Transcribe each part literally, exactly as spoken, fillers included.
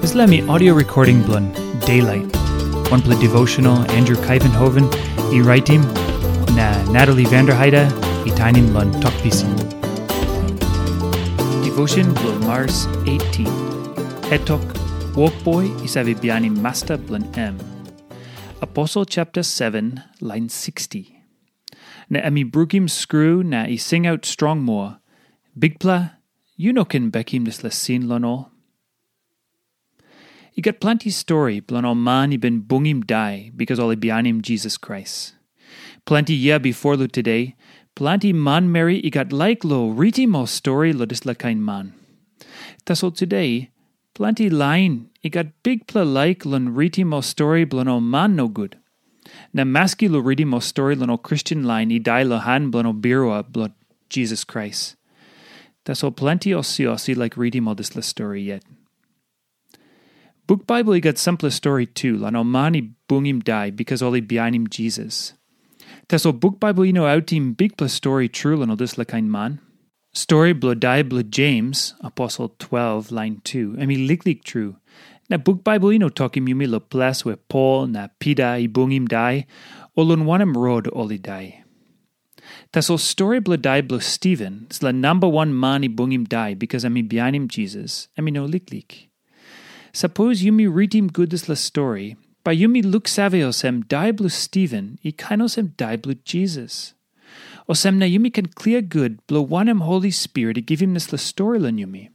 Dispela mi audio recording bilong Daylight, wanpela devotional Andrew Kaivenhoven i raitim, na Natalie Vanderheide i tainim long Tok Pisin. Devotion bilong Mars eighteen. Hetok, wokboi i save bihainim masta bilong em. Aposel chapter seven, line sixty. Na em i brukim skru na i singaut strong moa, "Bikpela, yu no ken bekim dispela sin long ol." I gat planti stori bilong ol man i bin bungim dai bikas ol i bihainim Jisas Krais. Planti yia bifor long today, planti manmeri i gat laik long ritim ol stori long dispela kain man. Tasol today, planti lain i gat bikpela laik long ritim ol stori bilong ol man nogut. Na maski long ritim ol stori long ol Kristen lain i dai long han bilong ol birua bilong Jisas Krais. Tasol planti osiosi laik ritim ol dispela stori yet. Buk Baibel i gat sampela stori tu long ol man i bungim dai bikas ol i bihainim Jisas. Tasol buk Baibel i no autim bikpela stori tru long ol dispela kain man. Stori bilong dai bilong Jems, aposel twelve, lain tu, em i liklik tru. Na buk Baibel i no tokim yumi long ples where Pol na Pita i bungim dai, o long wanem rot ol i dai. Tasol stori bilong dai bilong Stiven, dispela namba wan man i bungim dai bikas em i bihainim Jisas, em i no liklik. Sapos yumi ritim gut dispela stori, bai yumi luksave olsem dai bilong Stiven i kain olsem dai bilong Jisas. Olsem na yumi ken klia gut bilong wanem Holi Spirit i givim dispela stori long yumi.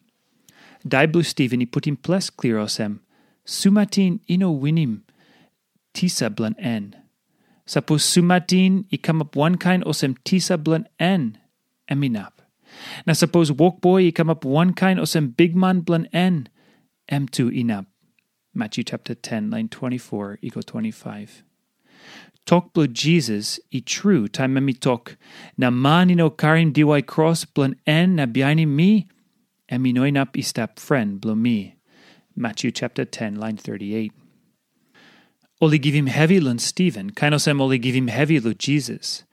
Dai bilong Stiven i putim ples klia olsem, sumatin i no winim tisa bilong en. Sapos sumatin i kamap wankain olsem tisa bilong en, em inap. Na sapos wokboi i kamap wankain olsem bikman bilong en, em tu inap. Matthew chapter ten, line twenty-four i go twenty-five. Tok bilong Jisas i tru taim em i tok, na man i no karim diwai kros bilong en na bihainim mi, em i no inap i stap fren bilong mi. Matthew chapter ten, line thirty-eight. Ol i givim hevi long Stiven, kain olsem ol i givim hevi long Jisas.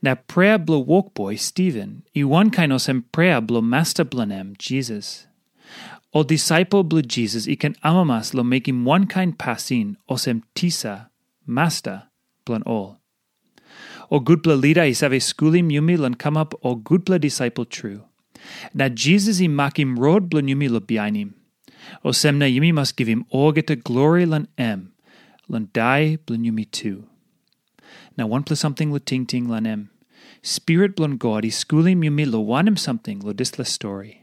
Na prea bilong wokboi Stiven i wankain olsem prea bilong masta bilong em, Jisas. Ol disaipel bilong Jisas i ken amamas long mekim wankain pasin olsem tisa, masta bilong ol. Ol gutpela lida i save skulim yumi long kamap ol gutpela disaipel tru. Na Jisas i makim rot bilong yumi long bihainim. Olsem na yumi mas givim olgeta glori long em, long dai bilong yumi tu. Na wanpela samting long tingting long em. Spirit bilong God i skulim yumi long wanem samting long dispela stori.